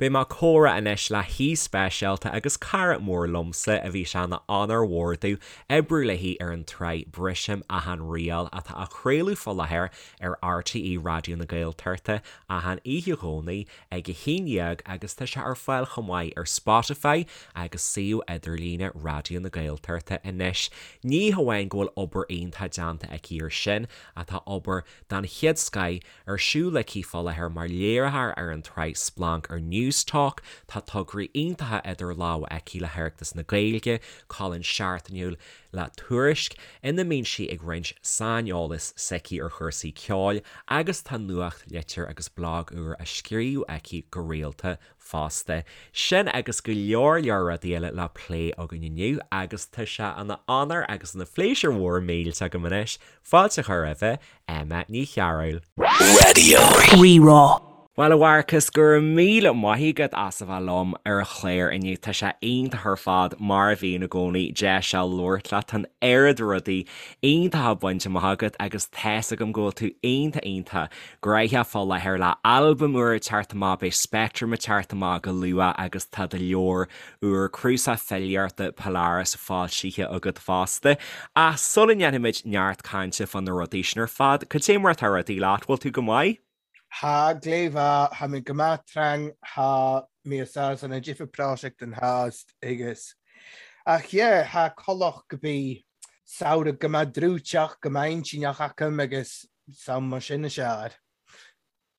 Beidh mé ag comhrá anois le haoi speisialta agus cara mór liomsa a bhí sé ina onóir mhór domh oibriú léi ar an tsraith Brisim Achan Riail atá á chraoladh fá láthair ar RTÉ Raidió na Gaeltachta achan oíche Dhomhnaigh ag 11 agus tá sé ar fáil chomh maith ar Spotify agus suíomh idirlíne Raidió na Gaeltachta anois. Ní hamháin go bhfuil obair iontach déanta aici ar sin ach tá obair den chéad scoith Ar siúl aici fá láthair mar léiritheoir ar an tsraith Splanc ar Newstalk, tá tograí iontacha idir lámha aici le hOireachtas na Gaeilge, colún seachtainiúil le Tuairisc, ina mbíonn sí ag roinnt saineolas s'aici ar chúrsaí ceoil, agus tá nuachtlitir agus blag úr á scríobh aici go rialta fosta. Sin agus go leor leor rudaí eile le plé againn inniu agus tá sé ina onóir agus ina phléisiúr mhór millteach agam anois fáilte a chur roimhe Emma Ní Chearúil. Raidió Rí-Rá. Bhuel, a Mharcas, go raibh míle maith agat as a bheith liom ar an chlár inniu. Tá sé iontach ar fad, mar a bhíonn i gcónaí, deis a labhairt leat. Tá an oiread rudaí iontacha bainte amach agat agus tá's agam go bhfuil tú iontach iontach gnóthach fá láthair le albam úr ag teacht amach, beidh Spectrum ag teacht amach go luath agus tá do leabhar úr, cnuasach filíochta Polaris foilsithe agat fosta. Ach sula ndéanfaimid neart cainte fá na rudaí sin ar fad, cad é mar atá rudaí leat, bhfuil tú go maith? Tha gleidh-mhath, tha mi gu math trang, tha mi anns a difir pràiseachd an thaast agus ach yeah, tha collach gu bi samhradh gu math drúiteach, gu math intinneach agam agus sam mar sin is eadh.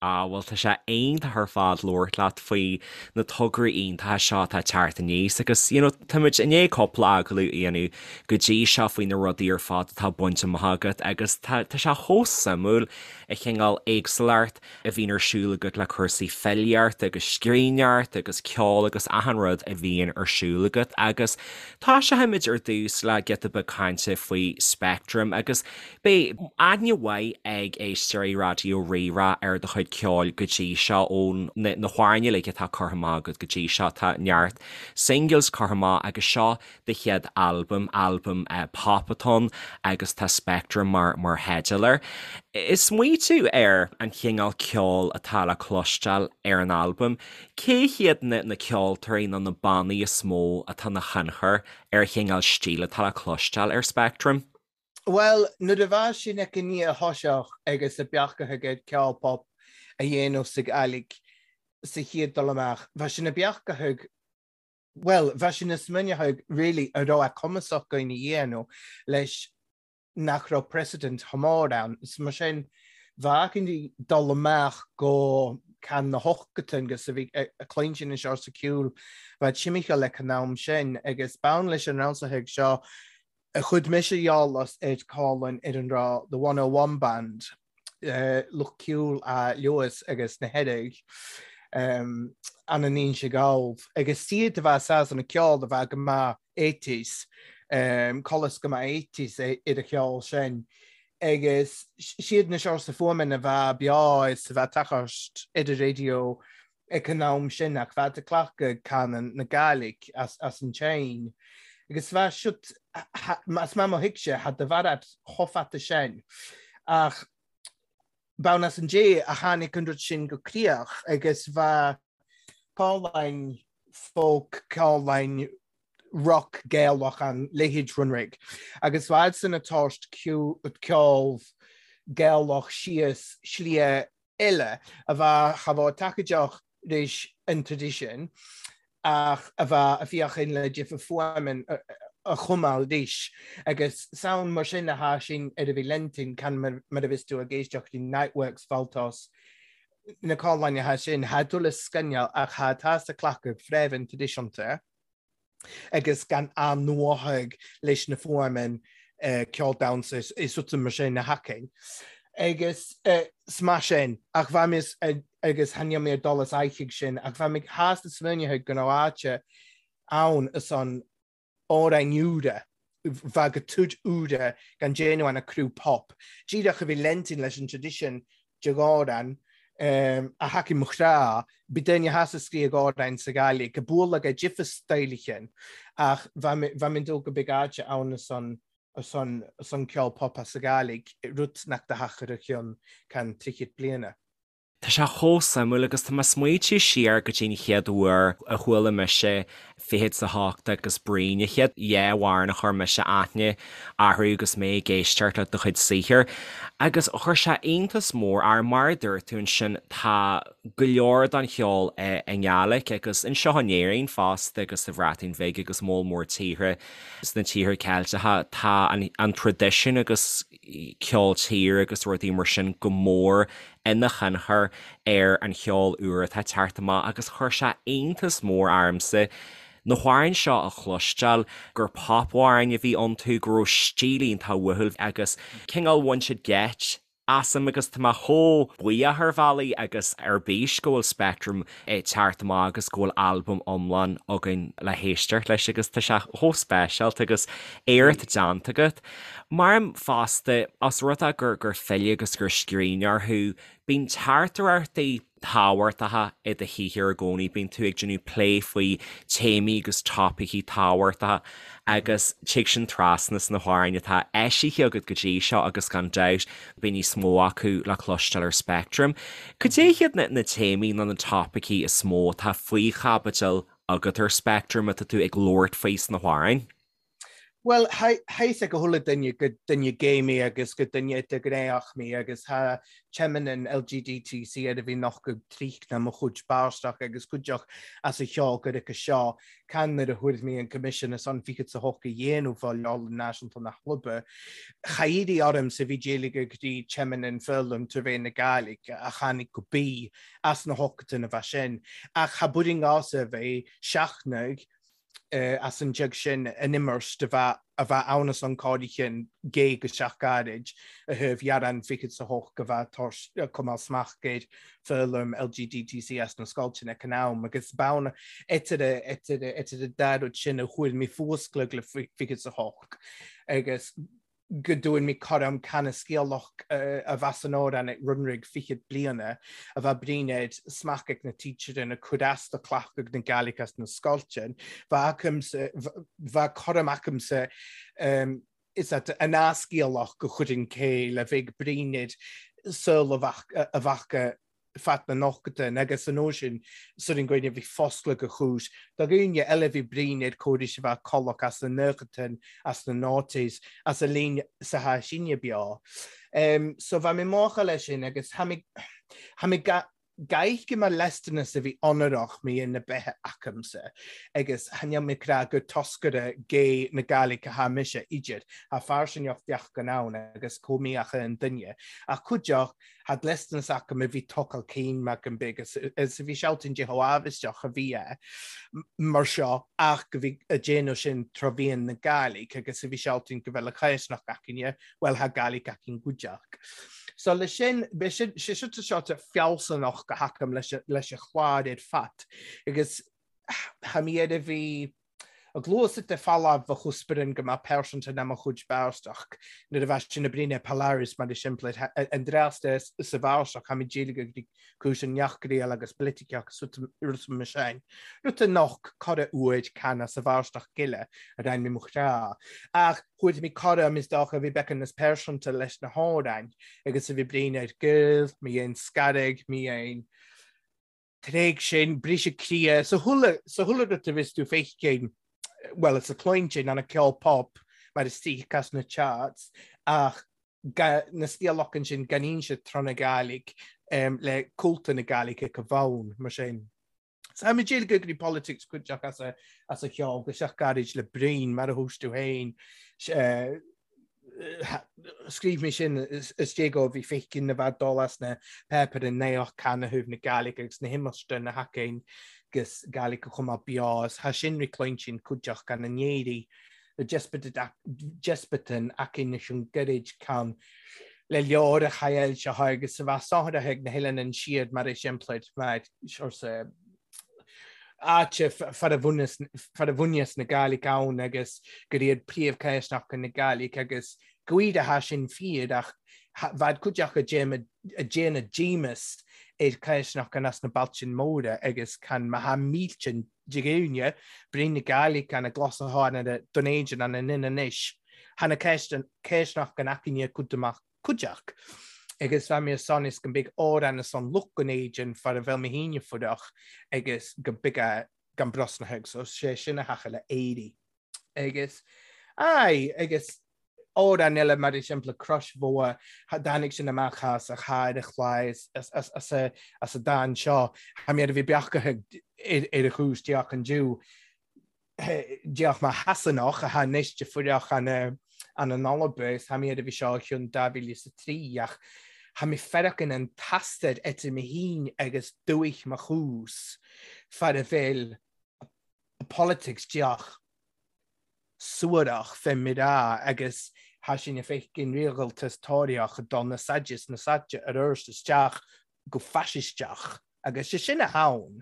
Ah, bhuel tá sé iontach ar fad labhairt leat faoi na tograí iontacha seo atá ag teacht aníos agus you know táimid i ndiaidh cúpla agallamh a dhéanamh go dtí seo faoi na rudaí ar fad atá bainte amach agat agus tá tá sé chomh suimiúil an chineál éagsúlacht a bhíonn ar siúl agat le cúrsaí filíochta agus scríbhneoireachta agus ceol agus achan rud a bhíonn ar siúl agat agus tosóimid ar dtús le giota beag cainte faoi Spectrum agus Beidh aithne mhaith ag éisteoirí Raidió Rí-Rá ar do chuid ceoil go dtí seo, ó na hamhráin uilig atá curtha amach agat go dtí seo. Tá neart singles curtha amach agus seo do chéad albam, albam pop atá ann agus tá Spectrum mar mar theideal air. Ag smaoitiú ar an chineál ceoil atá le cloisteáil ar an albam, cé hiad na na ceoltóirí nó na bannaí is mó atá ina thionchar ar an chineál stíl atá le cloisteáil ar Spectrum? Bhuel, nuair a bheas sin ag an a thoiseach agus a beachaithe aige ceol pop a dhéanamh sa Ghàidhlig sa chéad dul amach, bheadh sin a beachaithe, bhuel, bheadh sin a smaoineamh really a raibh a cumasach againn a dhéanamh leis nach raibh precedent chomh mór ann. Is mar sin, bheadh againn dul amach go ceann na hochtain agus a bhí a cluinstin anseo sa ceol, bheadh timcheall ag an am sin agus bonn leis an ransaithe seo A chuid mise eolas ar Colin ar an raibh The 101 Band, lucht ceoil a Lewis agus na hEirigh, an an Inse Gall, agus iad a bheith sásta na ceol a bheith go maith eighties, colas go maith eighties ar a cheol sin, agus siad na seo sa fuaimeanna a bheith beo is a bheith tachairt ar an raidió ag an am sin ach bheadh ag glacadh canann na Gàidhlig as an tSein. Agus bheadh siad, as mar mo thuigse, tha do bharrat chomh fada sin. Ach b'ann as an dé a tháinig an rud sin go críoch agus bheadh Pauline folk, Pauline rock Gaelach an leithéid Runrig. Agus bheadh san ag tabhairt ceol Gaelach síos slia eile a bheadh cha bheadh tacaideach leis an traidisiún ach a bheadh a féachaint le difear fuaimeann a chumadh arís agus sound mar sin a tha sin ar a bhí Lentin can mar a bhios tú ag éisteacht i Niteworks Valtos na cáláin atá sin tha tú le scannáil ach tha tá sa cleachtadh fréamh traidisiúnta. agus gan athnuathadh leis na fuaimeanna ceol damhsa is rudaí mar sin a thacainn. Agus 's mar sin, ach bheadh mé agus tha níl mé ag dul as aghaidh sin, ach bheadh mé shásta smaoineamh go raibh áite ann is an amhráin úra, bheadh go tud úra gan déanamh ann a criú pop. Díreach a bhí Lentin leis an tradition de dhomhan a thacaigh mo chrá, bhí duine theas a scríobh amhráin sa Ghàidhlig, go bualadh go difear staidhleachan, ach bheadh mé dó go beag áite ann ar son ceol pop as sa Ghàidhlig, rud nach do thacair a chionn ceann tríochad bliana. Tá sé chomh suimiúil agus tá mé ag smaoitiú siar go dtí an chéad uair a chuala mise Fichead 's a hOcht agus Bruíon, an chéad dhá amhrán a chuir mise aithne orthu agus mé ag éisteacht le do chuid saothair. Agus chuir sé iontas mór orm, mar a dúirt tú ansin, tá go leor den cheol i nGàidhlig agus anseo in Éirinn fosta agus sa Bhreatain Bhig agus moll mór tíortha sna tíortha Ceilteacha, tá an traidisiún agus ceol tíre agus rudaí mar sin go mór ina thionchar ar an cheol úr atá ag teacht amach agus chuir sé iontas mór ormsa na hamhráin seo a chloisteáil, gur pop-amhráin a bhí iontu, go raibh stíl iontach uathúil agus cineál bhain siad geit asam agus tá mé chomh buíoch ar bhealaí agus ar bís go bhfuil Speactram ag teacht amach agus go bhfuil albam iomlán againn le héisteacht leis agus tá sé chomh speisialta agus éacht déanta agat. Maram fosta, os rud é gur gur file agus gur scríbhneoir thú, bíonn teachtaireachtaí tábhachtacha i do shaothar i gcónaí, bíonn tú ag déanamh plé faoi téamaí agus topaicí tábhachtacha agus tig sin trasna sna hamhráin atá eisithe agat go dtí seo agus gan dabht beidh níos mó acu le cloisteáil ar Speactram. Cad é hiad na téamaí nó na topaicí is mó atá faoi chaibidil agat ar Speactram atá tú ag labhairt faoi sna hamhráin? Bhuel, tha fhios ag chuile duine gur duine gay mé agus gur duine idirghnéitheach mé agus tha teimeann an LGDTC ar a bhí nochtadh tríchna mo chuid báisteach agus cuideach as a cheol gur ice seo can nuair a thuair mé an Coimisiún is an fichead 's a hocht a dhéanamh fá Leabharlann Náisiúnta na Chlube. Cha éirigh ormsa bhí d'éiligh go dtí teimeann an foghlaim tar bheith na Gàidhlig a tháinig go bí as na hochtain a bheith sin ach cha buirinn gása a bheith seachnaigh as an deag sin an imirt do bheith a bheith ann as an cáirícheann gé go seach gairid a thaobh ghearán fichead 's a hocht go bheith tar cumáil smacht ar foghlaim LGDTC as na scoilteanna ag an am agus b'ann idir idir idir an dá rud sin a chuir mé fuascladh le fichead 's a hocht agus go dtugann mé cothrom canascéalach a bheas san amhrán ag Runrig fichead bliana, a bheith brínéad smacht ag na teacher na cur as do cleachtadh na Gaelic as na scoilteann. Bheadh acamsa, bheadh cothrom acamsa is at an ascéalach go chuireann cé le bheidh brínéad saol a bheadh fad na nochtain agus an uair sin sur an gcoinne bhí foscladh go chúis do dhaoine eile bhí bruíon ar córais a bheith collach as na nochtain as na noughties as a líon sa tha sinne beo. Um, so bha mé mácha leis sin agus tha mé tha mé ga gaich mar lestanas a bhí onarach mé na beithe acamsa agus tha níl mé crá gur toscaire gay na Gaelic a tha mise idir tha fairsingeach bheach gan ann agus chomh míocha an duine ach cuideach Tha dlisteanas acu a bhí tocal cinn mac an big is a bhí sealtainn de chomh amhaisteach a bhí é mar seo ach go bhí a déanamh sin tráth bhíonn na Gàidhlig agus a bhí sealtainn go bhfuil a caisneach againne, bhuel tha Gàidhlig againn cuideach. So leis sin, b'é sin, sé seo seo fealsúnach go hacam leis leis a chlár ar fad agus tha mé ar a bhí A gluais de falamh a chusparann go mbeadh pearsanta ná mo chuid báisteach nuair a bheas sin a bríne Polaris mar is simplid an dreas de sa bháisteach tha mi dílig ag cúis an neachgriail agus politiceach rud mar sin. Rud a noch cara uaid cana sa bháisteach gile a rein mé mo chrá. Ach chuaigh mé cara is dócha a bhí becan is pearsanta leis na hamhráin agus a bhí bríne ar gil, mé aon scarraigh, mé aon Tréig sin, briseadh croí, sa chuile, sa chuile rud a bhios tú feicfidh, bhuel, is a cluintin an ceol pop mar is tíc as na charts, ach ga, na stíl sin gan inse tráth na Gàidhlig um, le cúlta na Gàidhlig ag a bhonn, mar sin. So I'm a go dtí politics cuideach as a, as a cheol, go seach gairid le Bruíon mar a thús tú féin. Uh, Scríobh mé sin is dé go bhí féiceann na bheith dul as na páipéir in naoch canathaobh na Gaelic agus na himeachta na haicéin agus Gaelic a chuma beo is tha sin ri cluinsinn cuideach gan a n-éirí le despaitin aicéin leis an gcuirid can le leor a chaill seo agus a bheith sáthraithe ag na hoileáin an siad mar is simplid mar arsa áite far a bhunaíos na Gàidhlig ann agus gur iad príomhchéisteacha na Gàidhlig agus go a tha sin fíor ach bheadh cuid acu ag déanamh díomas ar chéisteacha as na bailte móra agus can má tha mílte de dhaoine brí na Gàidhlig an a gcloiseáin ar a Dún Éideann an a ninn anois tha na céisteacha aicne cuid amach cuideach. Agus bha mi ansan is go mbig òran ansan lucht gon éidean far a bheil mi fhìne fuireach agus go big a gan brosnathadh, so sé sin a thacha le éirí. Agus, aye, agus òran eile mar exempla Crois Mhórdha, tháinig sin amach as a chair a chlár as a dán seo, tha mi air a bhith beachtaithe ar a chúis deoch an Jew, deoch mar Shasanach atá anois de fuireach an an Alba is tha mi air a bhith seo chionn 2003 ach tha mi feireachain an t-astar idir mi fhìn agus dùich mo chús far a bheil politics deoch suarach fé mi ràdh agus tha sinn a' feicean riaghaltas Tóraíoch ag dul na saide is na saide aroirt isteach go faisisteach agus 'sé sin a th'ann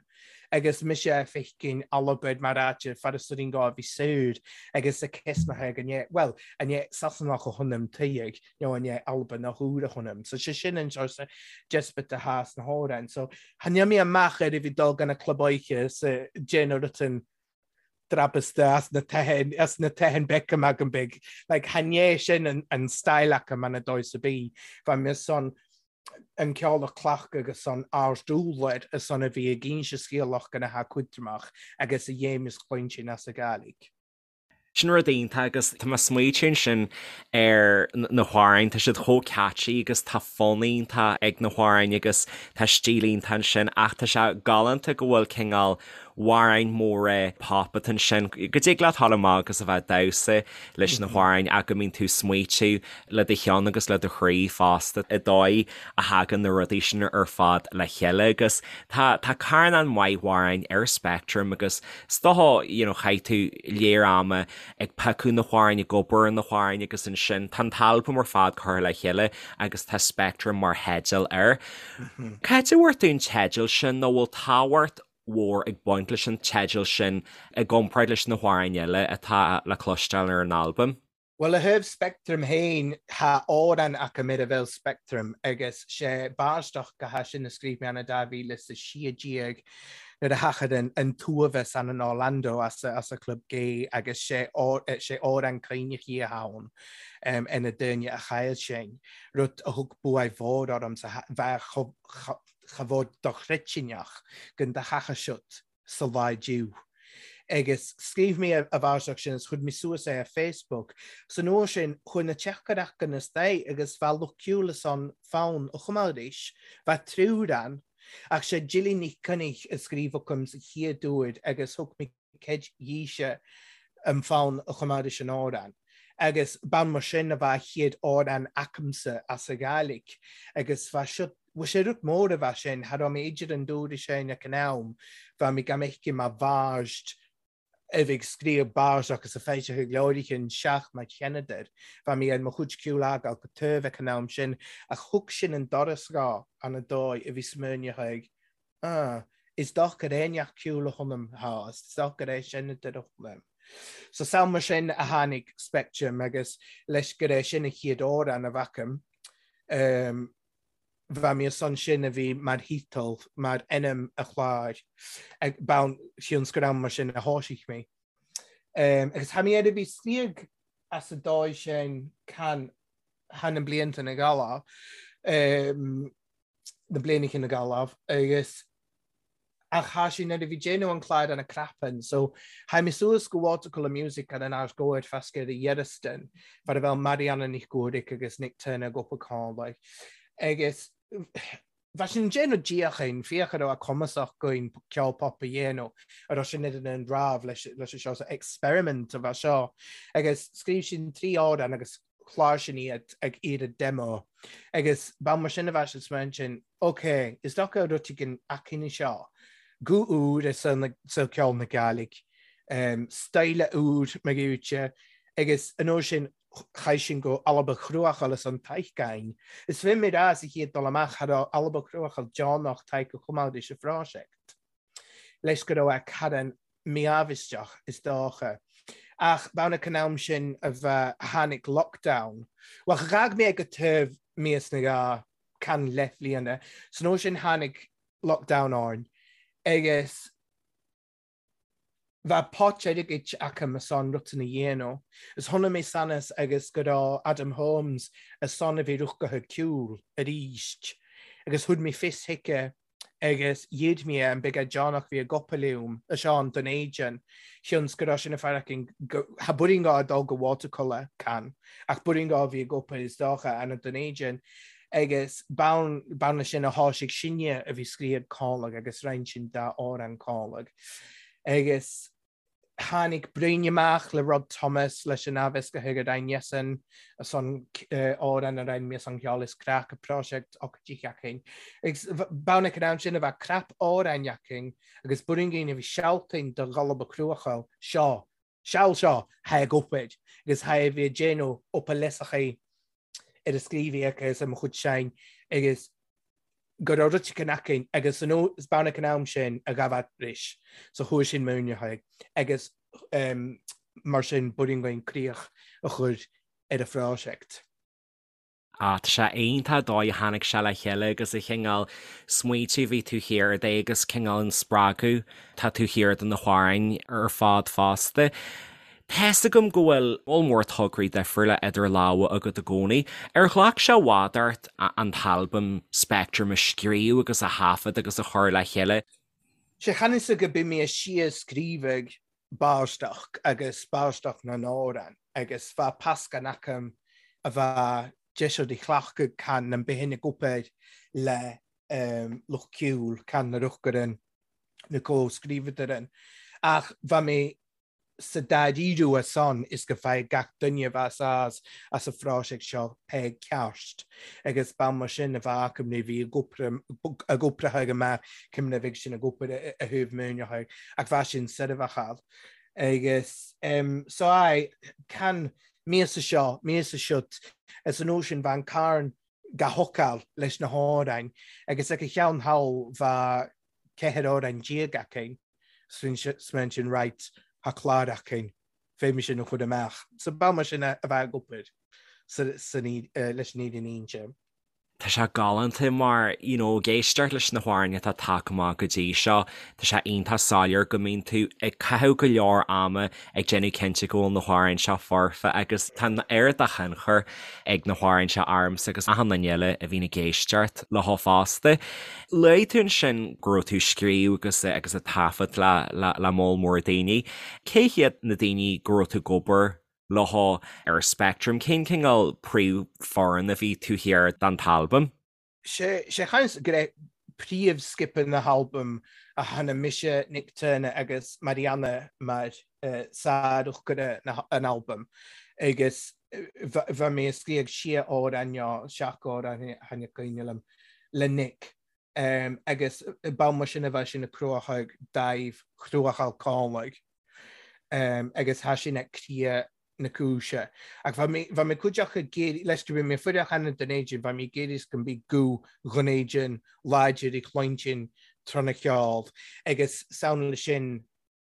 agus mise a' feicean Albain mar áit far a suirín gá a bhí saor agus a cesnaithe go ndé, bhuel, a ndé Sasanach a th'anam tuig nó a ndé Albanach úr a th'anam. So 'sé sin an sort despite athá sna hamhráin. So tha mé amach ar a bhí dul gan a club oíche sa déanamh rutan drabasta as na teithean as na teithean Beckham agam big. Like chan é sin an, an style acu man a dóigh sa bí. Bha mi son an ceol a chleachtadh agus an ard-úlair a son a bhí ag inse scéalach gona tha cuidreamach agus a dhéim is chluinsinn as a Gàidhlig. Sin rud iontach agus tá mé ag smaoitiú ansin ar na hamhráin, tá siad chomh catchy agus tá fonn iontach ag na hamhráin agus tá stíl iontach ansin ach tá sé galánta go bhfuil cineál amhráin móra pop atá ansin, go dtig leat dul amach agus a bheith ag damhsa leis na hamhráin ach go mbíonn tú ag smaoitiú le do cheann agus le do chroí fosta i dóigh a thagann na rudaí sin ar fad le chéile agus tá tá carnán maith amhráin ar Speictream agus is dócha you know chaith tú léar ama ag piocadh na hamhráin, ag obair ar na hamhráin agus ansin tá an t-albam ar fad curtha le chéile agus tá Speictream mar theideal air. Cá háit a bhfuair tú an teideal sin nó bhfuil tábhacht mhór ag baint leis an teideal sin i gcomparáid leis na hamhráin eile atá le cloisteáil ar an albam. Bhuel, a thaobh Speictrim féin, thá amhrán acu ar a bheil Speictrim agus sé báisteach go hea sin a scríobh mé ann i 2016 nuair a thachair an t-uaimheas ann in Orlando as a club gay agus sé amhrán caoineach a thá ann ar na daoine a chaill sinn, rud a thug buaidh mhór ormsa bheith chomh chomh dochreidteach gon do thacha siot sa lá diu. Agus scríobh mé a bháisteach sin is chuir mé suas é ar Facebook. San uair sin chuaigh na teachtaireachtaí na stair agus bha lucht ceoil is an fonn a chum arís. Bha triúr ann. Ach sé Jilly Nic Coinnich a scríobh agam sa chéad uair agus thug mé ceid dhíse an fonn a chum arís an amhrán. Agus b'ann mar sin a bha a chéad amhrán acamsa as a Ghàidhlig. Agus bha seo, bha sé rud mór a bha sin, cha raibh mé idir an dúr sin ag an am, bha mé gan fheicim mar bharst a bhí ag scríobh bars agus a feisithe leoraithe seach mar Sheanadar. Bha mé ar mo chuid ceoil a fhágáil go taobh ag an am sin, ach thug sin an doras dhá an a dóigh a bhí smaoineach ag Ah, is docha é neach ceoil a th'anam, thá, is docha é sin a deir liom. So sam mar sin a tháinig Speictream agus leis gur é sin a chéad amhrán a bhfacaim, um, bha mi ansan sin a bhí mar thíteal, mar ainm a chláir, ag bonn thionscadal mar sin a thoisigh mé. Um, agus tha mi air a bhí sníog as a dóigh sin can tha na blianta na gala, um, na blianacha na Gaillimh agus ach thá sí nuair a bhí déanamh an clár ana crapann so thaidh mé suas go Watercolour Music ar an Ard Gcomhair fasca ar a Dhearastan far a bheadh Marianna Nic Guairic agus Nick Turner ag obair Conway agus bheadh sin déanamh díochain féach a raibh a cumasach againn ceol pop a dhéanamh a raibh sin idir an rámh leis leis seo so experiment a bheith seo agus scríobh sin 3 amhrán agus chlár sin iad ag iarraidh demo agus ba mar sin a bheadh siad smaoin sin, ok, is dócha rud éigin aicíní seo, guth úr i saol ceoil na Gàidhlig, style úr mar ghiúite agus an uair sin chaith sin go Alba Chruachaill is an Taithgain. Is bhí mé rá sa chéad dul amach cha raibh Alba Chruachaill deonach Taidhg a choimeád sa phroiseact. Leis go raibh a Karen míámhaisteach, is dócha. Ach b'ann ag an am sin a bheith tháinig lockdown. Bhuel, dh'fhág mé ag an taobh míos na dhá can leathbhliana. San uair sin tháinig lockdown orainn agus. Bheadh pot airgid acu a son rud san a dhéanamh. Is chonaic mé sanas agus go raibh Adam Holmes a son a bhí rugtha ceol arís agus thug mé fios chuige agus dhíod mé an beagán deonach bhí ag obair liom a Seán don éigean chionns go raibh sin a fear againn go ha buirín gá dul go watercolour can ach buirín gá bhí ag obair is dócha ana don éigean agus bonn bonn leis sin a tháinig sinne a bhí scríobh cáileag agus roinn sin dá amhrán cáileag. Agus tháinig Brain amach le Rod Thomas leis an aimheas go chuige Ryan Jesson a son amhrán a roinn mé son ceol is craic a project ocáidí againn. Agus bonn ag an am sin a bheith crap amhráin againn agus buirín a bhí sealtainn do Gholb a Cruachail seo Seal seo tha ag obair agus tha a bhí ag déanamh up a leasachaí ar a scríobhaí agus ar mo chuid seinn agus go raibh rud éigin againn agus an is bean ag an am sin a ghabh ris so chuaigh sin múineadh agus mar sin b'fhurraing againn críoch a chur ar an phroiseact. Ah, tá sé iontach dóigh a tháinig sé le chéile agus a chineál smaoitiú bhí tú thiar de agus cineál an spreagadh tá tú thiar de na hamhráin ar fad fosta. Tá's agam go bhfuil moll mór tograí difriúla idir lámha agat i gcónaí. Ar ghlac sé i bhfad ort an t-albam Speictream a scríobh agus a thaifead agus a chur le chéile? Sé chan fhios go bith mé síos scríobhadh báisteach agus báisteach na n-amhrán agus bheadh pascán acu a bheadh deis de chleachtadh can an bith ag obair le lucht ceoil can na ruchgaran na comhscríobhadar ach bheadh mé sa dáiríre a son is go bhfaigheadh gach duine a bheas as as an phroiseact seo pé ceart agus ba mar sin a bheadh acu nuair a bhí ag obair ag amach cuimhneamh ag sin ag obair a thabh múineadh ach bheadh sin seirbheachal agus so aye can míosa seo míosa siúd is an uair sin bheadh an carn ga thocáil leis na hamhráin agus ag a cheann thall bheadh 14 amhrán againn smaoin sin right thá clár againn féadfaidh sin a chur amach. So ba mar sin a bheadh ag obair leis an fhírinne a inse. Tá sé galánta mar, you know, ag éisteacht leis na hamhráin atá tagtha amach go dtí seo, tá sé iontach soiléir go mbíonn tú ag caitheamh go leor ama ag déanamh cinnte go bhfuil na hamhráin seo foirfe agus tá an oiread de thionchar ag na hamhráin seo ormsa agus achan duine eile a bhíonn ag éisteacht leo fosta. Luaigh tú ansin go raibh tú ag scríobh agus agus ag taifead le le le moll mór daoine. Cé hiad na daoine go raibh tú ag obair leo ar Spectrum? Cén cineál príomhfhoireann a bhí taobh thiar den t-albam? Sé chaint go raibh príomhscipe na halbaim a tháinig mise, Nick Turner agus Marianna mar sárúchtaire an albaim agus bheadh mé ag scríobh sé amhrán nó seacht amhrán tháinig cuimhne liom le Nick agus ba mar sin a bheadh sin ag cruachadh daimh chruachadh cálaigh. agus thá sin ag cria na cúise. Ach bheadh mé, bheadh mé cuid acu ag iarraidh, leis go bhí mé fuireach cheana don éigin, bheadh mé ag iarraidh go mbeadh guth dhon éigin láidir ag cluinstin tráth na cheol agus samhail sin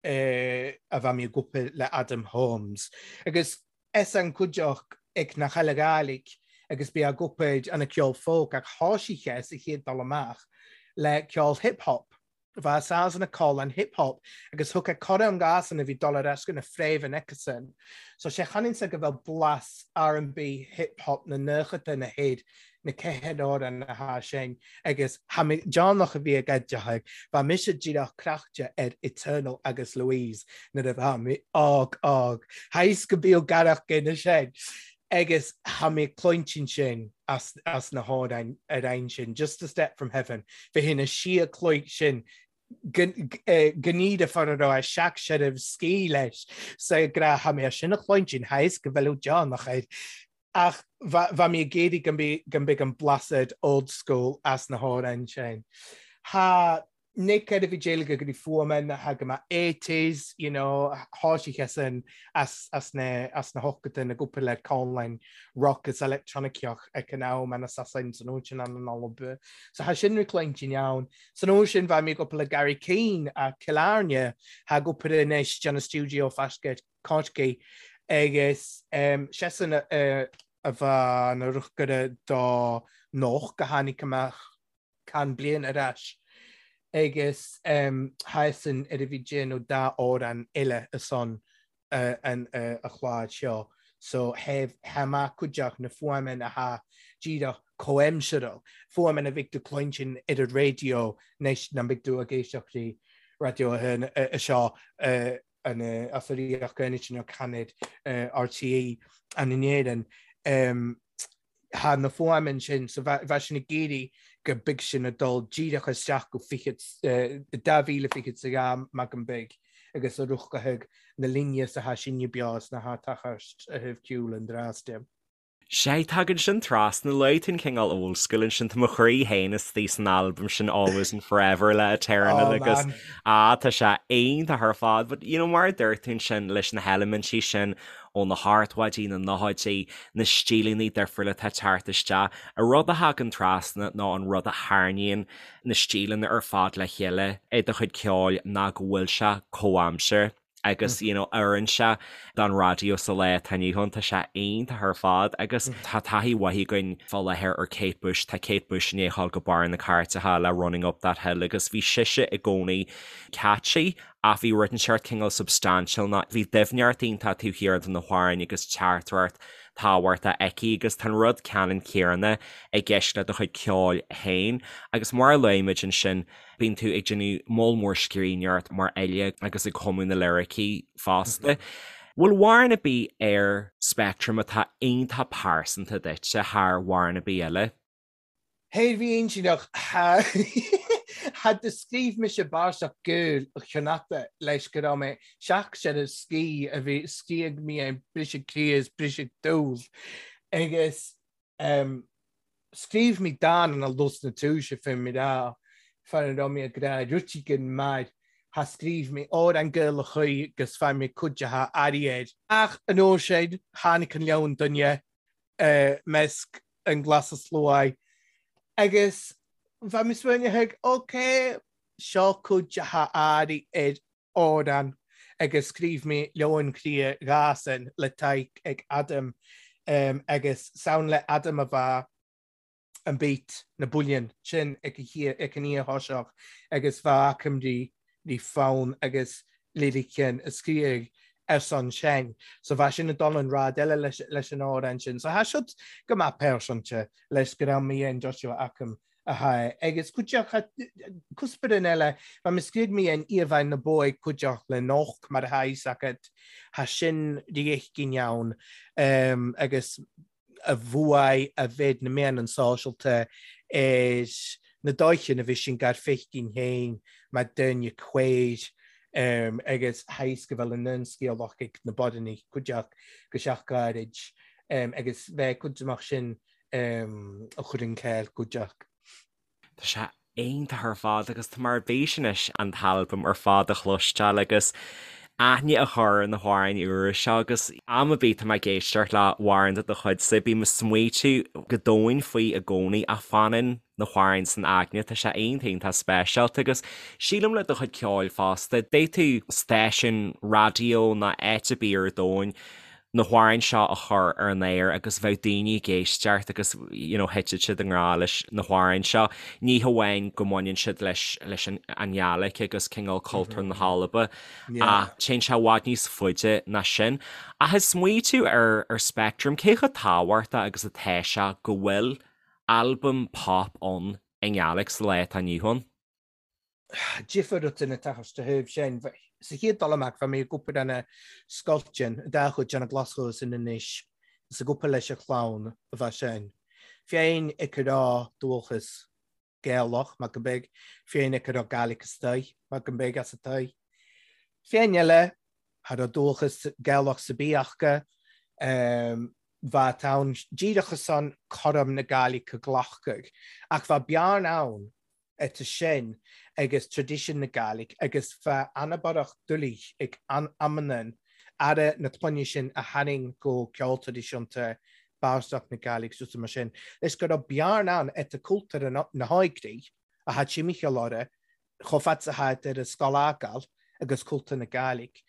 a bheadh mé ag obair le Adam Holmes. Agus is an cuideachta ag na Chaile Ghaidhlig agus bí ag obair an ceol folk ach thoisigh sé sa chéad dul amach le ceol hip hop. Bheadh Sasana cáil an hip hop agus thug a cora an gas an a bhí dul ar ais go na fréamh aicesan. So sé chanainn go bhfuil blas R&B hip hop na nóchada na héad na ceithre amhrán atá sin agus tha mé deonach a bhí ag oideachadh bheadh mise díreach craichte ar Eternal agus Louise nuair a bheadh mé óg óg. Tha fhios go bíodh garach gine sin agus tha mé cluintin sin as as na hamhráin ar aon sin, Just a Step From Heaven, bhí na sia cloig sin gníomh far a raibh a seac seiribh scí leis sa gra tha mé sin a chluintin tha fhios go bhfuil deonach air ach bha mé ag iarraidh go mbeidh an blasad old school as na hamhráin sin. Tha Nick ar a bhí déileáil go dtí fuaimeanna tha go mbeadh eighties, you know, thoisigh sé sin as, as na, as na hochtaí na gcúpla le conlán rock is electroniceach ag an am an Assassin san uair sin an an Alba. So tha sin reclaimtí ann. San uair sin bha mé ag obair le Gary Keane a Cill Airne, tha ag obair anois déanamh stiúideo faisce Corcaigh agus um, seisean a, a bha na ruchgaire do noch go tháinig amach can bliain ar ais. Agus thá san ar a bhí déanamh dá amhrán eile ansan an a chlár seo so tha maith cuideachd na fuaimeann athá díreach comhaimseartha, fuaimeann a bheidh tú cluinstin ar an raidió anois ná beidh tú ag éisteacht le Raidió 1 seo an as a Ríocht Aontaithe nó Canad RTÉ an in Éirinn. Thá na fuaimeann sin so bheadh sin ag iarraidh go mbeidh sin ag dul díreach isteach go 2022 mac an big agus a ruchadh na linne is athá sinne beo is na h-tochairt a thaobh ceoil an drásta. Sea, tagann sin trasna, luaigh tú an cineál old school ansin, tá mo chroí féin istigh san albam sin Always and Forever le Eternal Oh agus man. ah tá sé iontach ar fad but you know mar a dúirt tú ansin leis na heilimintí sin ó na hochtóidí, na nóchaidí, na stíleanna difriúla atá ag teacht isteach. An rud a thagann trasna nó an rud a tharraingíonn na stíleanna ar fad le chéile i do chuid ceoil ná go bhfuil sé comhaimseartha agus you know oireann sé don raidió sa lá atá inniu ann. Tá sé iontach ar fad agus tá taithí mhaith againn fá láthair ar Kate Bush. Tá Kate Bush i ndiaidh a ghabháil go barr na cairteacha le Running Up That Hill agus bhí sise i gcónaí catchy Ach bhí rud inteacht cineál substantial ná bhí doimhneacht iontach taobh thiar de na hamhráin agus teachtaireacht tábhachtach aici agus tá an rud ceannann céanna i gceist le do chuid ceoil féin agus mar a luaigh muid ansin bíonn tú ag déanamh moll mór scríbhneoireacht mar fhile agus ag cumadh na liricí fosta. Bhfuil amhrán ar bith ar Speactram atá iontach pearsanta duitse thar amhrán ar bith eile? Thair bhí intinneach tha do scríobh mise bàrseach Gael Chonachta leis go raibh mé seach ar an scí a bhí scríobh mé an briseadh croí is briseadh dúl agus scríobh mé dán ina lus na túise fé mé rá fara raibh mé ag rá rutigin mar tha scríobh mé amhrán Gaelach agus fuair mé cuid de tha airí air. Ach an uair sin tháinig an leon duine measc an glas is luaith agus bheadh mé smaoineamh ok, seo cuid de tha airí ar amhrán agus scríobh mé Leabhán Croidhe Ghasan le Tadhg ag Adam agus sound le Adam a bheadh an beat, na builleann sin ag an oíche thoiseach agus bheadh achoimrí rí fonn agus liriceann a scríobh ar son sin. So bheadh sin ag dul an rad eile leis an amhrán sin. So thá siad go maith pearsanta leis go raibh mé an Joshua Acam a thá agus cuideachta cuspóir eile bheadh mé scríobh mé an íomhá na bó ag cuideachta le noch mar atá fhios agat thá sin riachtainn ann agus a bhuaigh a mhéid na meáin sóisialta ar na dóicheanna a bhí sin gar feicinn féin mar duine queer agus thaisc go bhfuil an scéalach ag na bodanna cuideach go seach gairid agus bheith cuid amach sin a chur an céill cuideach. Tá sé iontach ar fad agus tá mé ar bís anois an t-albam ar fad a chloisteáil agus aithne a chur ar na hamhráin úra seo agus am ar bith tá mé ag éisteacht le hamhrán de do chuidse bím ag smaoitiú go domhain faoi i gcónaí ach fanann na hamhráin san aigne, tá sé iontach iontach speisialta agus sílim le do chuid ceoil fosta, d'fhéadfadh stáisiún raidió nó áit ar bith ar domhan na hamhráin seo a chur ar an aer agus bheadh daoine ag éisteacht agus you know thitfeadh siad i ngrá leis na hamhráin seo. Ní hamháin go mbaineann siad leis leis an an Ghàidhlig agus cineál cultúr na hAlba ach téann sé i bhfad níos faide ná sin. Ach ag smaoitiú ar ar Speactram, cé chomh tábhachtach agus atá sé go bhfuil albam pop ann i nGàidhlig sa lá atá inniu ann? Difear rud ina teacht de thaobh sin. Sa chéad dul amach, bhí mé ag obair ina scoilteann, i dá chuid de na Glasgow sin anois, is ag obair leis an chlann a bheith sin. Féin ag rá dúchas Gaelach, mar go mbeidh, féin ag rá Gaelic istoigh, mar go mbeidh as atoigh. Féin eile, cha raibh dúchas Gaelach sa bith acu, bheadh ann díreach ansan cothrom na Gaeilge a ghlacadh, ach bheadh bearna ann eta sin agus traidisiún na Gàidhlig agus bheadh an-borrach doiligh ag amannan aire na clainne sin a tharraing go ceol traidisiúnta bardasach na Gàidhlig suas mar sin leis go raibh bearna ann eta cultúr na hóigrí a tha timcheall orra chomh fada 's a tha ar an scoil fhágáil agus cultúr na Gàidhlig.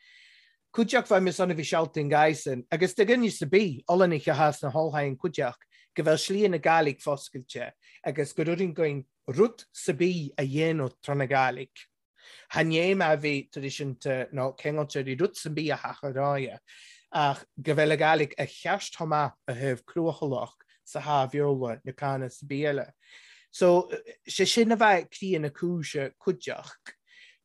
Cuideachd bha mi son a bhith sealtainn gàidhsean, agus do dhuine 's a' bith, Ollanaich a tha sna h-Albain cuideachd, go bheil slí na Gàidhlig foscailte agus gur urrainn gainn rud 's a' bith a dhéanamh tràna Gàidhlig. Chan é mar a bhí traidisiúnta nó ceangailte ri rud 's a' bith a theach a ráidhe, ach go bheil a Gàidhlig a cheart chomh maith a thaobh cruachalach sa tha Bheurla nó canadh 's a' bith eile. So, sé sin a bheith croidhe na cúise cuideachd.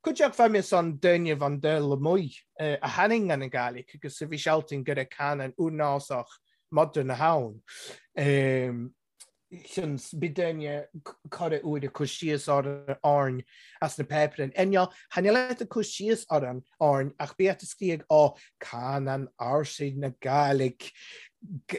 Cuideachd bha mi son duineibh an dul amuigh a tharraing an Gàidhlig agus a bhith sealtainn gur ag canadh úrnásach modern a tha ann. Seans bith duine corra uair ag cur síos orainn as na páipéirí. Inniu, chan eil ag cur síos orainn ach bith a' scríobh ó canann ársaigh na Gàidhlig,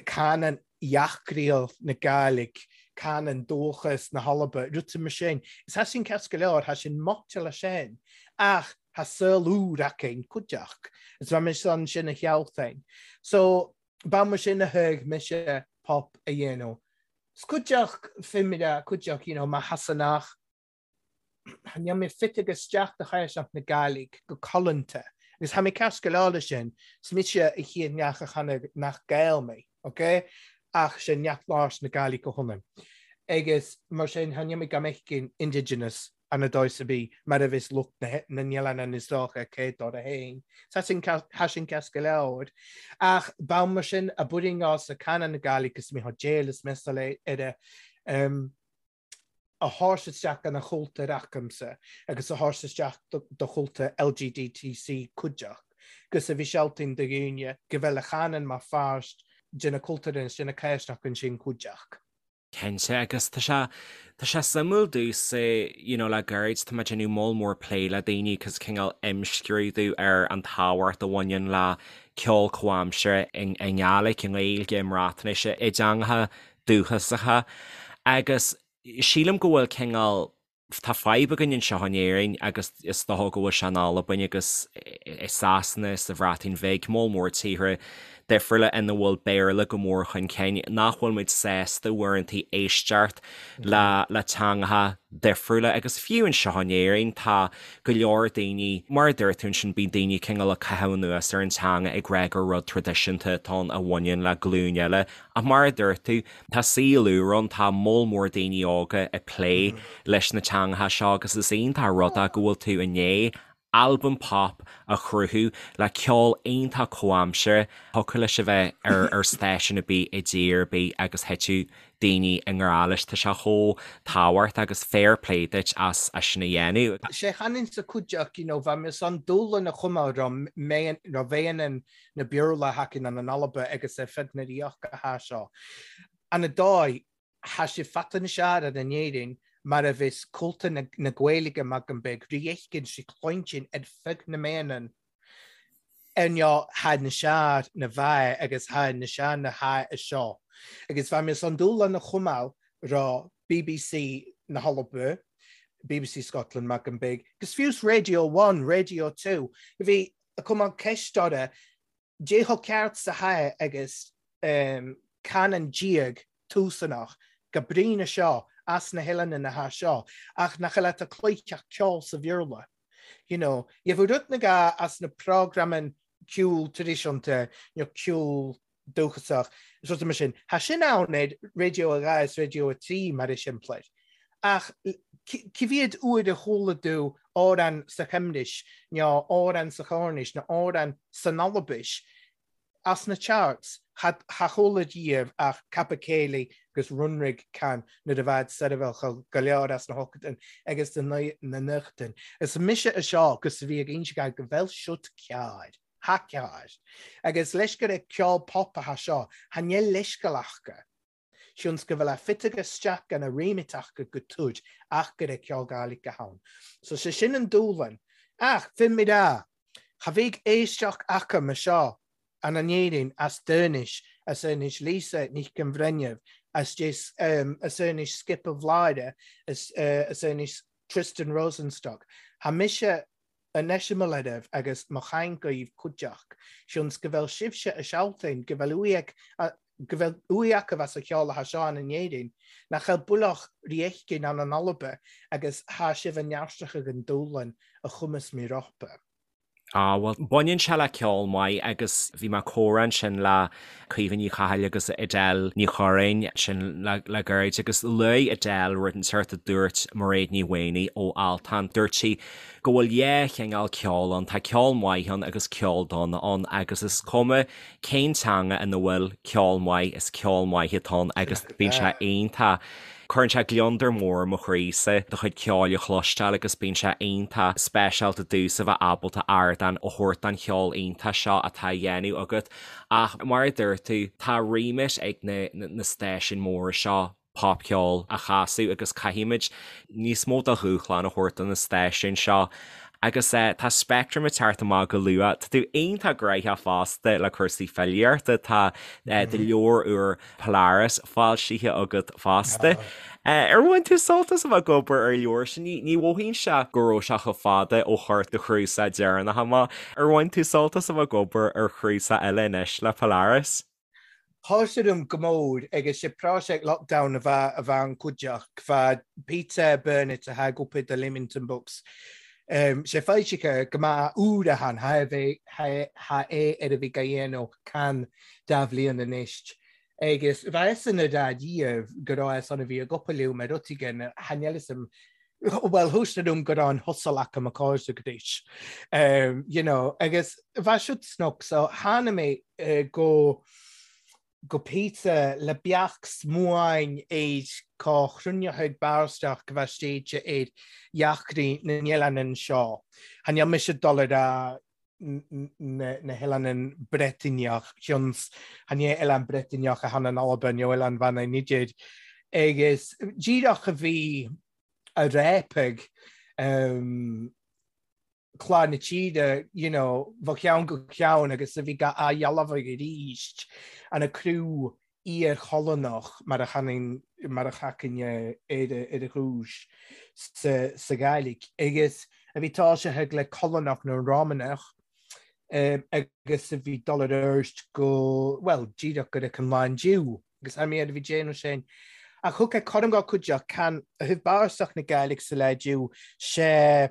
canann dheachraíl na Gàidhlig, canann dúchas na hAlba, rudaí mar sin. Is tha sin ceart go leor, tha sin maite leis sin, ach tha saol úr againn cuideachd. Is bha mi son sin a shealtainn. So, Ba mar sin a thuig mise pop a dhéanamh. 'S cuideachd fimire, cuideachd, you know, mar Shasanach, níl mé fite isteach do chaiseach na Gàidhlig go codlanta. Agus tha mi ceart go leor leis sin, 's mise a chéad neach a chanadh nach Gael mé, ok? Ach sé neach labhairt na Gàidhlig a hionann. Agus mar sin, tha níl mé gan mé indigenous ana dóigh 's a bith mar a bheas lucht na n-oileán is dócha cé dóra fhéin. Tha sin ceart go leor. Ach ba mar sin a b'fhuirinn sa canadh na Gàidhlig is mé déil is measal ar a thabhairt isteach gona chultúr acamsa agus a thabhairt isteach do chultúr LGDTC cuideachd gus a bhith sealtainn do dhaoine go bhfuil a chanann mar pháirt de na cultúir is de na cáisneach ansin cuideachd. Cinnte, agus tá sé, tá sé suimiúil domhsa, you know, le gairid tá mé ag déanamh moll mór plé le daoine agus cineál imscrúdú ar an tábhacht a bhaineann le ceol comhaimseartha i nGàidhlig, i nGaeilge, i mBreatnais, i dteangacha dúchasacha agus sílim go bhfuil cineál Tá fadhb againn anseo in Éirinn agus is dócha go bhfuil sé in Albain agus i Sasana, sa Bhreatain Bhig, moll mór tíortha difriúla ina bhfuil Béarla go mór chun cinn, nach bhfuil muid sásta uaireanta éisteacht le le teangacha difriúla agus fiú anseo in Éirinn tá go leor daoine, mar a dúirt tú ansin, bíonn daoine cineál ag caitheamh anuas ar an teanga ag rá gur rud traidisiúnta atá ann a bhaineann le glúin eile ach mar a dúirt tú, Tá saol úr ann, tá moll mór daoine óga ag plé leis na teangacha seo agus is iontach an rud é go bhfuil tú i ndiaidh albam pop a chruthú le ceol iontach comhaimseartha. Thiocfadh leis a bheith ar stáisiún ar bith i dtír ar bith agus thitfeadh daoine i ngrá leis. Tá sé chomh tábhachtach agus fair play duit as sin a dhéanamh. Sé chanann sa cuideachta, you know, bha mi son dùbhlan a chumadh ro mheadhan na Beurla thacainn an an Alba agus ar fud na Ríochta tha seo. Ana dóigh, tha si fata na sear ar an Éirinn mar a bheas cultúr na na Gaeilge mar go mbeidh rí éicint sí cluintin ar feadh na mbeanann ar neo tha na sear na bhfeadh agus tha na sear na tha a seo. Agus bha mi son dúshlán a chumadh ro BBC na hAlba, BBC Scotland mar go mbeidh, agus fiús Radio One, Radio 2, bhí a cumadh ceist orra dé chomh ceart 's a tha agus canann diaidh túsanach go brína seo as na hoileáin na tha seo ach nach eil at a cloicheach ceol sa Bheurla. You know, gheibh rud na ga as na programan ceol traidisiúnta nó ceol dúchasach is rudaí mar sin. Tha sin ann ar Radio 2 is Radio 3 mar is simplir. Ach cé mhéad uair a chuala tú amhrán sa Chymris nó amhrán sa Chornais nó amhrán san Albais as na charts? Cha chuala riamh ach Capercaillie agus Runrig can nuair a bhead seirbheáil go leor as na hochtain agus na nochtain. Is mise a seo agus a bhí ag inse go bhfuil siot cearr. Tha cearr. Agus leis gur ag ceol pop a tha seo, tha níl leithscéal aca. Sionns go bhfuil a fite isteach gan a remit aca go tud ach gur ag ceol Gàidhlig a tha ann. So sé sin an dúshlan. Ach, finn mi rá, cha bheidh éisteacht aca mar seo an an Éirinn as Dúinis, as Inis Lisa Nic an Bhreithneamh, as as Inis Skipa Bhláire, as as Inis Tristan Rosenstock. Tha mise an eiseamal oraibh agus mo chaint dhaoibh cuideachd, sionns go bhfuil sibhse a sealtain, go bhfuil uaidh go bhfuil uaidh acu as a cheol atha seo ann in Éirinn, nach bhfuil builleach rí éicin ann in Alba agus thá sibh a neartach ag an dúshlan a chumas mí ropa. Á, bhuel, baineann sé le ceol maith agus bhí mé ag comhrá ansin le Caoimhe Ní Chathail agus Edel Ní Churráin ansin le gairid agus luaigh Edel rud inteacht a dúirt Mairéad Ní Mhaonaigh ó Altan. Dúirt sí go bhfuil dhá chineál ceoil ann, tá ceol maith ann agus ceol dona ann agus is cuma cén teanga ina bhfuil ceol maith, is ceol maith atá ann agus bíonn sé iontach. Cuireann sé gliondar mór i mo chroísa do chuid ceoil a chloisteáil agus bíonn sé iontach speisialta domhsa bheith ábalta ardán a thabhairt don cheol iontach seo atá á dhéanamh agat. Ach mar a dúirt tú, tá remit ag na na stáisiúin mhóra seo popcheol a chasadh agus caithfimid níos mó de dhúshlán a thabhairt do na stáisiúin seo. Agus tá Speictream ag teacht amach go luath. Tá tú iontach gnoitheach fosta le cúrsaí filíochta. Tá do leabhar úr Polaris foilsithe agat fosta. Ar bhain tú sult as a bheith ag obair ar an leabhar sin? Ní mhothaíonn sé go raibh sé chomh fada ó chuir do chnuasach deireanach amach. Ar bhain tú sult as a bheith ag obair ar chnuasach eile anois le Polaris? Thoisigh dom go mór agus sé próiseas lockdown a bheith a bheith an cuideachta bheith Peter Burnett a tha ag obair do Leamington Books. Sé foilsithe go maith úr a than tha tha é ar a bhí ga dhéanamh can dá bhliain anois. Agus bheith san a dá dhiaidh go raibh san a bhí ag obair liom ar rud éigin tha níl fhios a'm bhuel thuas dom go raibh an hustle acu mo cairde go dtís. You know, agus bheith siúd snoc so tháinig mé go go Peter le beach smuain ar cá chruinneochaidh barraisteach go bheith stéite ar dheacraí na n-oileán seo. Tha níl mise dul ar a na hoileáin Breataineach, cionns chan é oileán Breataineach a than in Albain nó oileán Mhanann idir, agus díreach a bhí a réipeadh clár na tíre, you know, ó cheann go ceann agus a bhí ga athdhealbhadh arís an a criú iar-cholonach mar a chanann, mar a chacann ar a chúis sa Ghàidhlig, agus a bhí toiseachaidh le Colonach nó Rómánach agus a bhí dul ar ard go, bhuel, díreach go raibh an lán Jew, agus tha mi air a bhí déanamh sin. Ach thug é cothrom dhá cuideachd, can a thaobh bárastach na Gàidhlig sa lá Jew, sé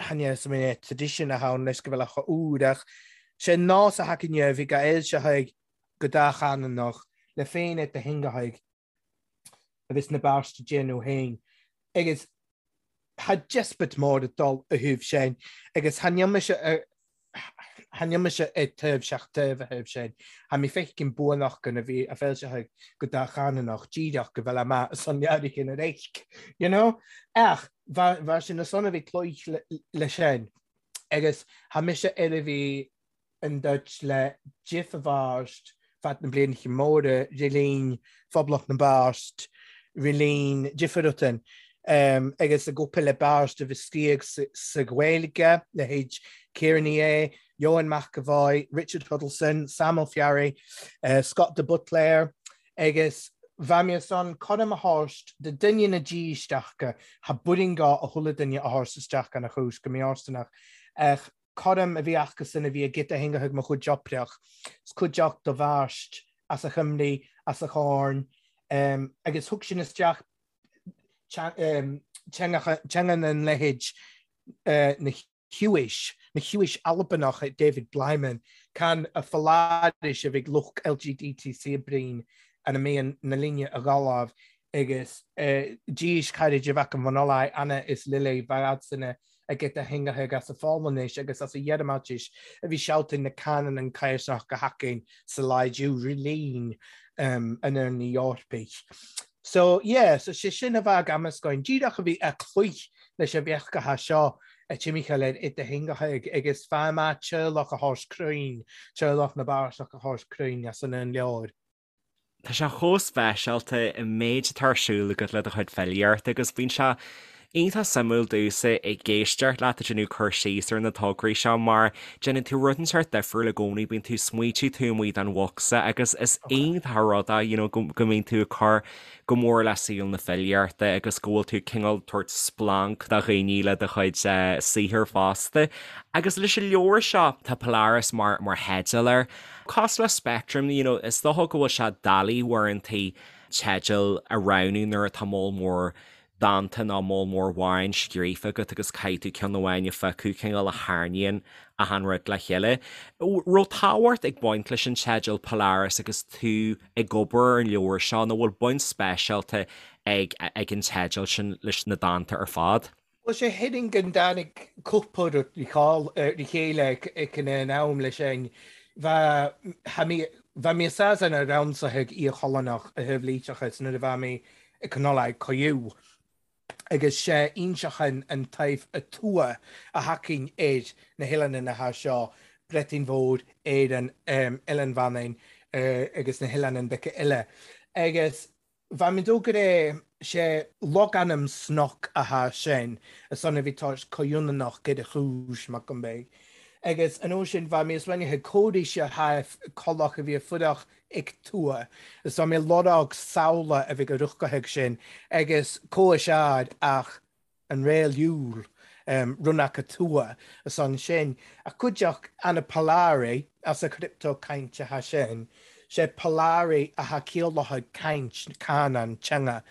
chan é sa mé tradition a thann leis go bhfuil a úr, ach sé nós a thacainn a bhí ga fhoilseachaidh go dátheangach le féin et do theangachaidh a bhí sna bearta déanamh féin agus tha diospóid mór ag dul a thaobh sin agus tha níl mise tha níl mise ag taobh seach taobh a thaobh sin. Tha mi feicim buanach gan a bhí a foilseachaidh go dátheangach díreach go bhfuil amach san leabhar ar éisc, you know? Ach bha sin na son a bhí cloích le sin agus tha mise ar a bhí an duit le Jiff a bharst fad na blianacha móra rilín Phoblacht na bPáist, rilín difear agus ag obair le Barst a bhí scríog sa Ghaeilge, leithéid Ciara Ní É, Eoin McEvoy, Richard Huddleston, Sam Ó Fearraigh, Scott de Buitléar, agus bha mi ann coram a thabhairt do duine na dísteachta, tha buirinn-gá a chuile duine a thabhairt isteach gan a chúis go mí-fhóirsteanach, ach coram a bhí acusan a bhí ag giota theangachaidh mo chuid oibreach, 's cuideachta do bharst as a Chymru, as a Chorn, agus thug sin isteach teanga na leithéid na Huish, na Huish Albanach David Blyman, can a Pholaris a bhí lucht LGDTC brín an a mbíonn na linne a ghabháil agus dís cairid a bheadh an bhunolai Anna is Lily bheadh a geta theangachaidh as a Pholainnis agus as a Ghearmáinis a bhí seolta na canann an caorsach go hacainn sa laidiú rilín an Airne Eorpaigh. So, yeah, so sé sin a bheadh amascáin díreach a bhí a cloich leis a bheachgacha seo a timcheall ar ita theangachaidh agus feadh maith teaghlach a thabhairt cruinn, teaghlach na bPárasach a thabhairt cruinn as an leabhar. Tá sé chomh speisialta an méid atá ar siúl agat le do chuid filíochta agus bíonn sé iontach suimiúil domhsa ag éisteacht leat ag déanamh cur síos ar na tograí seo mar déanann tú rud inteacht difriúil i gcónaí, bíonn tú ag smaoitiú taobh amuigh den bhocsa agus is iontach an rud é you know go mbíonn tú ag cur go mór le saol na filíochta agus go bhfuil tú cineál tabhairt splanc do dhaoine le do chuid saothair fosta. Agus leis an leabhar seo, tá Polaris mar mar theideal air. Cosúil le Spectrum, you know, is dócha go bhfuil sé doiligh uaireantaí teideal a roghnú nuair atá moll mór. dánta nó moll mór amhráin scríofa agat agus caithfidh tú ceann amháin a phiocadh, cineál a tharraingíonn achan rud le chéile. Raibh tábhacht ag baint leis an teideal Polaris agus tú ag obair ar an leabhar seo nó bhfuil baint speisialta ag ag an teideal sin leis na dánta ar fad? Bhuel, sé thuigeann go dtáinig cúpla rud ri chéile ag an am leis sin. Bha mi a-sas an raon-sa ag Iar-Cholonach a thaobh leiteachas nuair a bha mi ag Cnollaig Coiú agus sé inseachan an taobh a tua a thacainn ar na hoileáin atá seo, Breatainn Mhór, Éireann, Oileán Mhanainn agus na hoileáin beaga eile. Agus Bha mi dó gur é sé logainm snoc athá sin, a son a bhí toisc comhionannach gur a chúis, mac an bheidh. Agus an uair sin bha mi as bhainne cóiríse thaif collach a bhí a fuireach ic tua, is bha mi lorg samhla a bhí go ruchcathach sin, agus comhais ár ach an réalúil, run aca tua, a son sin, ach cuideachd ana Polari as a crypto caint atha sin, sé Polari atha ciallathach caint, canán, teanga,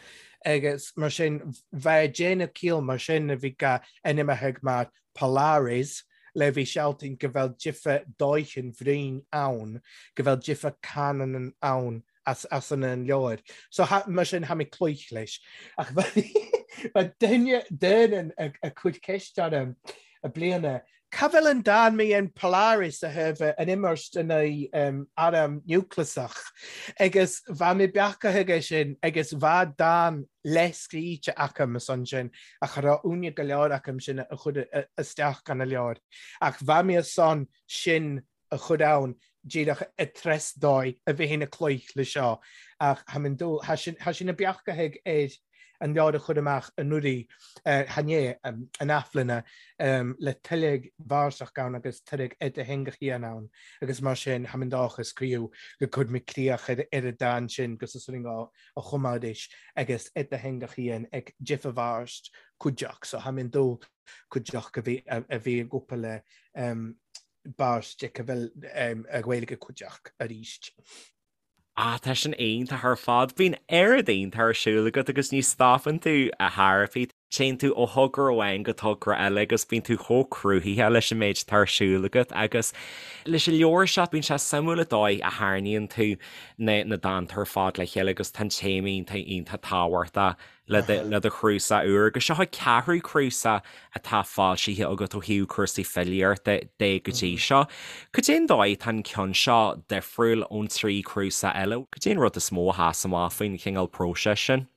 agus mar sin bheadh déanamh ciall mar sin a bhí ga ainmneacha mar Polaris le bhí sealtainn go bhfuil difear dóichin bhraoin ann, go bhfuil difear canán ann. as as an an leabhar. So ha, mar sin tha mi cloich leis. Ach bha duine duine ag ag cur ceist orm a bliana, Ca bhfuil an dán mi in Polaris a thaobh an imirt in aghaidh arm niúcleasach? Agus bha mi beachaithe aige sin agus bha dán leath-scríte agam ansan sin ach cha raibh uaine go leor agam sin a chur isteach gan a leabhar. Ach bha mi ansan sin a chur ann díreach i dtreis dóigh a bheith ina cloich le seo ach tha minn dul, tha sin, tha sin a beachtaithe ar an leabhar a chur amach anuraidh, chan é, an athbhliana, le tuilleadh vársach ann agus tuilleadh idirtheangachaí ann agus mar sin tha minn dóchas criú go gcuir mé críoch ar an dán sin gus is rinne a chumadh arís agus idirtheangachaí ag difear bharst cuideach so tha minn dul cuideach a bhí a bhí ag obair le báisteach a bhfuil a Ghaeilge cuideach arís. Ah, tá sin iontach ar fad. Bíonn oiread iontach ar siúl agat agus ní stopann tú a Thairfí. Téann tú ó thogra amháin go togra eile agus bíonn tú chomh cruthaithe leis an méid atá ar siúl agat agus leis an leabhar seo bíonn sé suimiúil an dóigh a tharraingíonn tú na na dánta ar fad le chéile agus tá an téama iontach iontach tábhachtach le do chnuasach úr, agus seo an ceathrú cnuasach atá foilsithe agat ó thaobh cúrsaí filíochta de go dtí seo. Cad é an dóigh atá an ceann seo difriúil ón trí chnuasach eile? Cad é an rud is mó a sheas amach faoin chineál próiseas sin?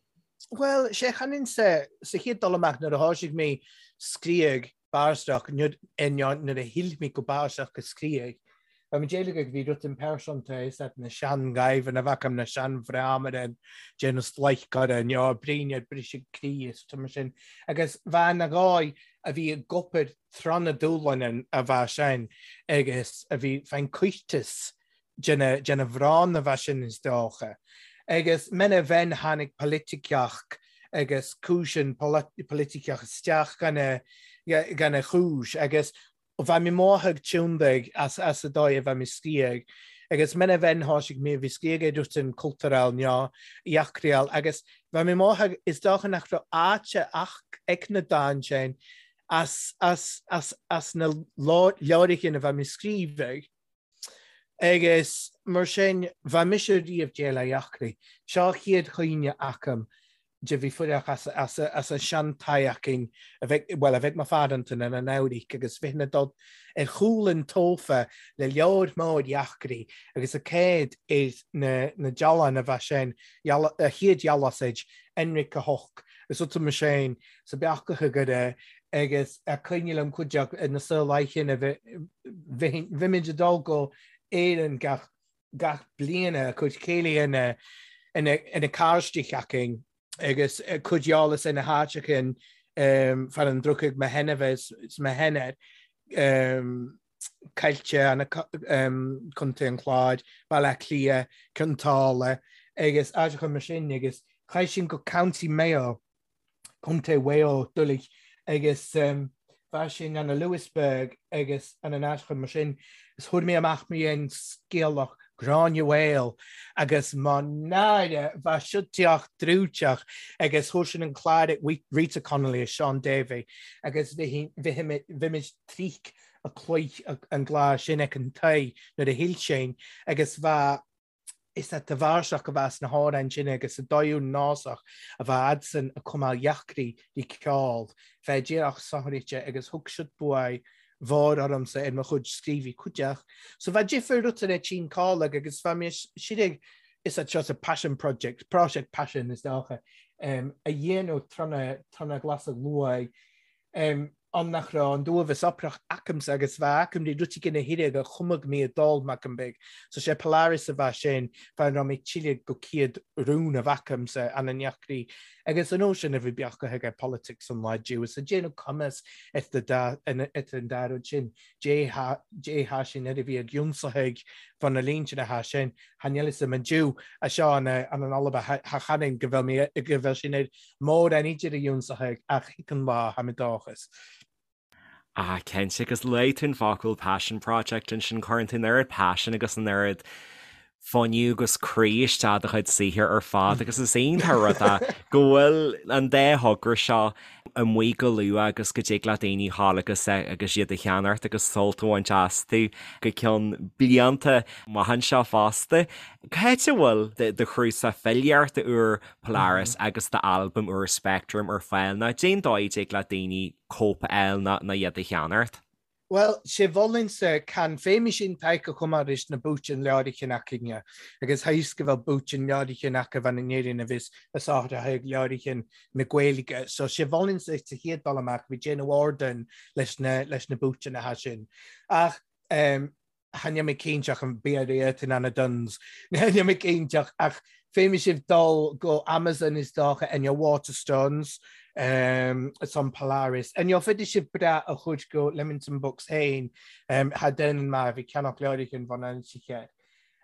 Bhuel, sé chanann sa chéad dul amach nuair a thoisigh mé scríobh báisteach nuair a shíl mé go báisteach go scríobh. Bha mi deilg ag bhí rud impearsanta is at na sean-ghaibheann a bheadh na sean-bhreámaire déanamh slaidhceára nó bríne ar briseadh croí is mar sin. Agus bha na gáidh a bhí ag obair tráth na dúshláin a bha sin agus a bhí fén cuirteas de na mhrán a bheith sin is dócha. Agus mena bheinn tháinig poiliticeach agus cúiseann poiliticeach isteach gan a chúis agus bheith mé maith ag tiúndaigh as as a dóigh a bheith mé sciath agus mena bheinn thoisigh mé bhí sciath ag dúirt an cultúrál ná eachriáil agus bheith mé maith ag is dócha nach raibh áite ach ag na dán sin as as as as na leabhrachain a bheith mé scríobh Agus mar sin, bha mise riamh déil a eachraidh. Seo chéad chuimhne agam de bhí fuireach as as as an sean-teach a bheidh, bhuel, a bheidh mo pharanta ina n-amhraidh agus bhí na dod ar chúl an tófa le leabhar mór eachraidh agus a céad ar na na dealán a bheadh sin, a chéad dhealasaid, Enric a hoc, is uta mo sin sa beachacha go raibh agus a cuimhne liom cuid de na saol a bhímid ag dul go Éirinn gach gach bliain a cuid céilí ina ina ina cairste againn agus cuid eolas ina háiteachain fear an drochaidh mo shenamh is mo shenair Coillte an Contae an Chláir, Baile Átha Cliath, Cionn tSáile agus áiteacha mar sin agus chaith sin go County Mayo Contae Mhaigh Eo doiligh agus bha sin anna Louisburgh agus an an áiteacha mar sin is thuair mé amach mé an scéalach. Gráinne Mhaol agus mo náire bha siod teach drúiteach agus chuir sin an clár ag Rita Connolly is Seán Davey agus bhí trích a cloich an gclár sin ag an tae nuair a shil sin agus bha is at de bharrsach a bheas na hamhráin sin agus sa dóigh násach a bha fhadsan a cumadh dheacraí di ceol fé díreach sochraide agus thug siad buaidh mhór ormsa ar mo chuid scríobhaí cuideach. So bha difir rud ar tinn cáileag agus bha mé sirig is at seo sa passion project, prosiect passion is dócha, a dhéanamh trona ghlasadh luaith. An nach raibh an duabhas oprach acamsa agus bha acam rí rud éigin a thuilleadh a chumadh mé a d'ól m'acam beag. So sé Polaris a bha sin, fá an raibh mé tuilleadh go céad rún a bhacamsa an an neachraí agus an uair sin a bhí beacha aige politics an lá Jew is a déanamh cumas at the da at an dá rud sin Dé tha Dé tha sin ar a bhí ag ionsaithe fá na línte na tha sin tha níl fhios a'm an Jew a seo an an an Alba tha tha chanainn go bhfuil mé go bhfuil sin ar mórán idir a ionsaithe ach thig an lá tha mé dóchas. Ah, cinnte, agus luaigh tú an focal passion project ansin, cuireann tú an oiread passion agus an oiread fuinneamh agus croí isteach do chuid saothair ar fad agus is iontach rud é go bhfuil an dá thogra seo amuigh go luath agus go dtig le daoine dhul agus agus iad a cheannacht agus sult a bhaint astu go ceann blianta amach anseo fosta. Cá háit a bhfuil do chnuasach filíochta úr Polaris agus d'albam úr Spectrum ar fáil nó cén dóigh a dtig le daoine cóip a fháil nó iad a cheannacht? Bhuel, sé mholfainnse can féimidh sin tagtha chomh maith leis na búitinn leoraichin acainne, agus tha fhios go bhfuil búitinn leoraichin aca bhean in Éirinn a bhios a sáthraithe ag leoraichin na Gaeilge. So sé mholfainnse sa chéad dul amach bhí déanamh ardáin leis na leis na búitinn atá sin. Ach ehm Cha níl mé cinnte ach an bia réidh in Anna Dunnes. Níl mé cinnte ach féadfaidh sibh dul go Amazon is dócha and your Waterstones um, it's on Polaris. And you'll féidir sibh breá a chuid go Leamington Books féin um, ha den mar bhí ceannach leirichin van an sicheir.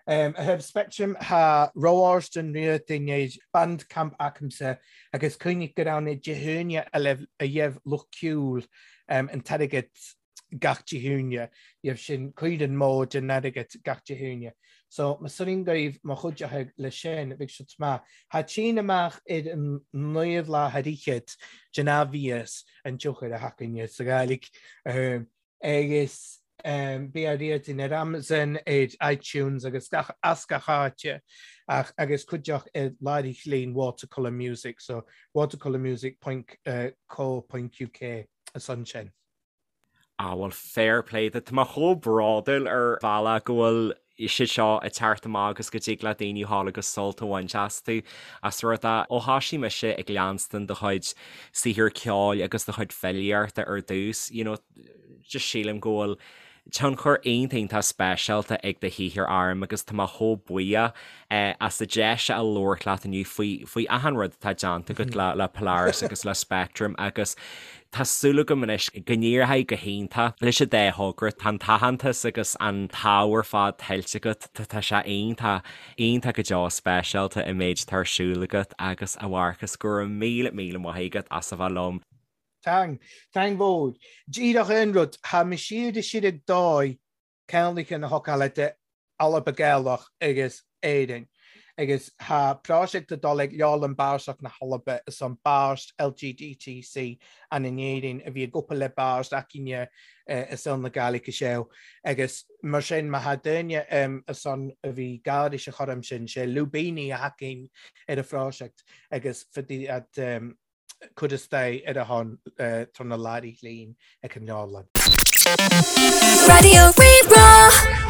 Um, a thaobh Spectrum ha roáirsten riatain ar Bandcamp acamsa agus cuimhnigh go raibh na Dé hAoine a a dheibh lucht ceoil um, an t-airgead gach Dé hAoine, gheibh sin cuid an mó den airgead gach Dé hAoine. So, mo soirín gaibh mo chuid acu le sin, bheadh siad maith. Tha tinn amach ar an naomh lá thar fhichead den athmhias an tionchar a thacainn sa Ghàidhlig. Agus bí á riardain ar Amazon, ar iTunes agus gach as gach áite ach agus cuideach ar láithreán Watercolour Music, so watercolourmusic point co point uk is ansin. Ah bhuel fair play duit. Tá mé chomh bródúil ar bhealach go bhfuil siad seo ag teacht amach agus go dtig le daoine dhul agus sult a bhaint astu as rud é ó thoisigh mise ag leanstan do chuid saothar ceoil agus do chuid filíochta ar dtús, you know, just sílim go bhfuil tionchar iontach iontach speisialta ag do shaothar orm agus tá mé chomh buíoch as an deis a labhairt leat inniu faoi faoi achan rud atá déanta agat le le Polaris agus le Spectrum agus tá súil agam anois go n-éireoidh go hiontach leis an dá thogra. Tá an t-aitheantas agus an t-ádh ar fad tuillte agat, tá sé iontach, iontach go deo speisialta an méid atá ar siúl agat agus a Mharcas go raibh míle míle maith agat as a bheith liom. Tang, tang mhór. Díreach aon rud, tha mi siar is siar ag dòigh ceannlaithe na hocáile de Alba Gaelach agus Éirinn agus tha pròiseact a dol ag Leabharlann Bàrthach na hAlba is an bàirt LGDTC ann in Éirinn a bhí ag obair le bàirt againne i saol na Gàidhlig is ea agus mar sin má tha daoine is ann a bhí gairis a chur ansin sé lúibíní a thacaíonn ar an phròiseact agus fadaí fhad cur isteach ar a shon tá na Larry Hlín ag an leabharlann. Raidió Rí-Rá.